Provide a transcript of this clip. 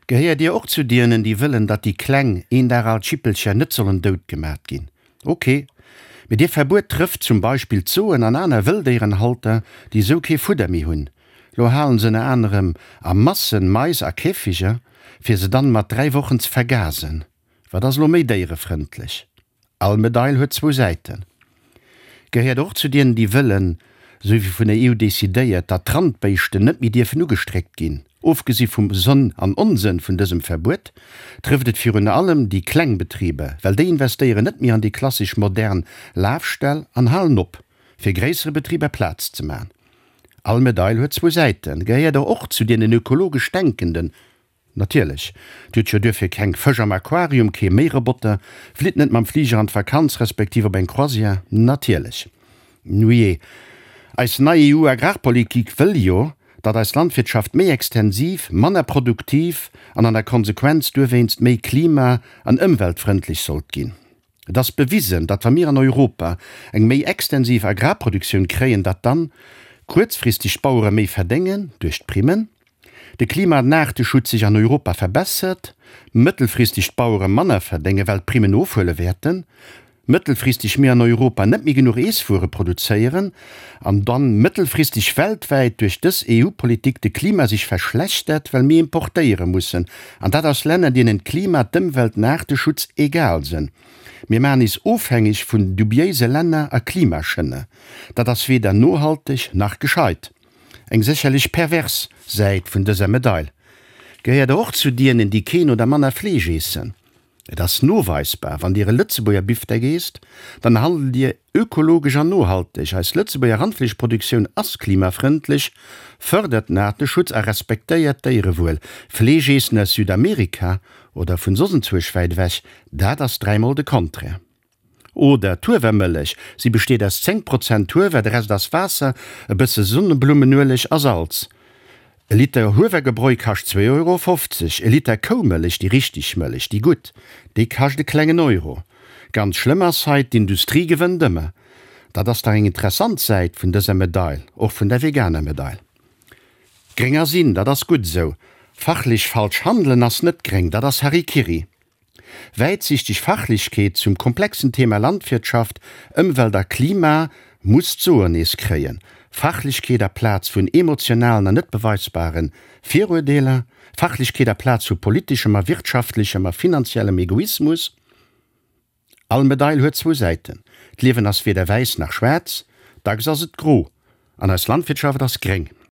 Gehéiert Dir och zu dienen, déi wëllen, datt déi kleng, een Dag al Jippelcher net sollen dout gemat ginn? Ok, mee dee Verbuet trëfft zum Beispill d'Soen an aner Wëlldéierenhalter, déi esou kee Fudder méi hunn. Lo halen se ënner anerem a Massen Mais a Käfiger, fir se dann mat 3 Wochen ze vergasen. Wat ass lo méi déierefrëndlech? All Medail huet zwou Säiten. Gehéiert och zu dienen, déi wëllen, esou wéi vun der EU decidéiert, datt d'Randbéischten net méi dierfen ugestréckt ginn. Ofgesi vum Sënn an Onsënn vun dësem Verbuet, trëfft et virun allem déi kleng Betriber, well déi investéieren net méi an déi klassesch modern Lafställ an halen op, fir gréissere Betriber Plaz ze man. All Medail huet zwou Säiten. Gehéiert der och zu dienen ökologesch Denkenden, Natierlech. Dir hutt jo duerfir keng Fësch am Aquarium, kee Méiroboter, flitt net mam Fliger an d'Vakanz respektiv op eng Croisière. Natierlech. Nujee, eis nei EU-Agrarpolitik wëll jo, datt eis Landwirtschaft méi extensiv, manner produktiv an an der Konsequenz duerwéinst méi klima an ëmweltfrëndlech sollt ginn. Et ass bewisen, datt wa mir an Europa eng méi extensiv Agrarproduktioun kréien, datt dann kuerzfristeg d'Bauere méi verdéngen duerch d'Primmen, de Klima an Aarteschutz sech an Europa verbessert, mëttelfristeg d'Bauere manner verdéngen, well d'Primmen ofhuele wäerten, mëttelfristeg mir an Europa net méi genuch Eesswuere produzéieren an dann mëttelfristeg weltwäit duerch dës EU-Politik de Klima sech verschlechtert, well mir importéiere mussen, an dat aus Länner, deenen d'Klima, d'Ëmwelt, den Aarteschutz egal sënn. Mir maachen is ofhängeg vun dubiéise Länner a Klimaschënner. Dat ass weder nohalteg nach gescheit. Eng sécherlech pervers Säit vun dëser Medail. Gehéiert Der och zu dienen, déi keen oder manner Fleesch eessen? Et ass noweisbar, wann Dir e Lëtzebuerger Bifdeck eesst, dann handelt Dir ökologesch an nohalteg. Eis Lëtzebuerger Randfleeschproduktioun ass klimafrëndlech, fërdert den Aarteschutz a respektéiert d'Déierewuel. Fleesch eessen aus Südamerika oder vun soss enzwuesch wäit ewech, dat ass dräimol de Contraire. Oder d'Huewermëllech, si besteet aus 10 Prozent Huewer, de Rest ass Waasser, e bësse Sonneblummenueleg a Salz. E Liter Huewergebräu kascht 2,50 Euro, e Liter Koumëllech, déi richteg Mëllech, déi gutt, déi kascht e klengen Euro. Ganz schlëmm ass hei, d'Industrie gewënnt ëmmer. Dat ass dach eng interessant Säit vun dëser Medail, och vun der veganer Medail. Gréng ass in, dat ass gutt esou. Fachlech falsch handelen ass net gréng, dat ass Harikiri. Wäitsichteg Fachlechkeet zum komplexen Thema Landwirtschaft, Ëmwelt a Klima muss d'Soen nees kréien. Fachlechkeet aplaz vun emotionalen an net beweisbare Viruerdeeler. Fachlechkeet aplaz vu politeschem a wirtschaftlechem a finanziellem Egoismus. All Medail huet zwou Säiten. D'Liewen ass weder wäiss nach schwaarz, dacks ass et gro. An eis Landwirtschaft ass gréng.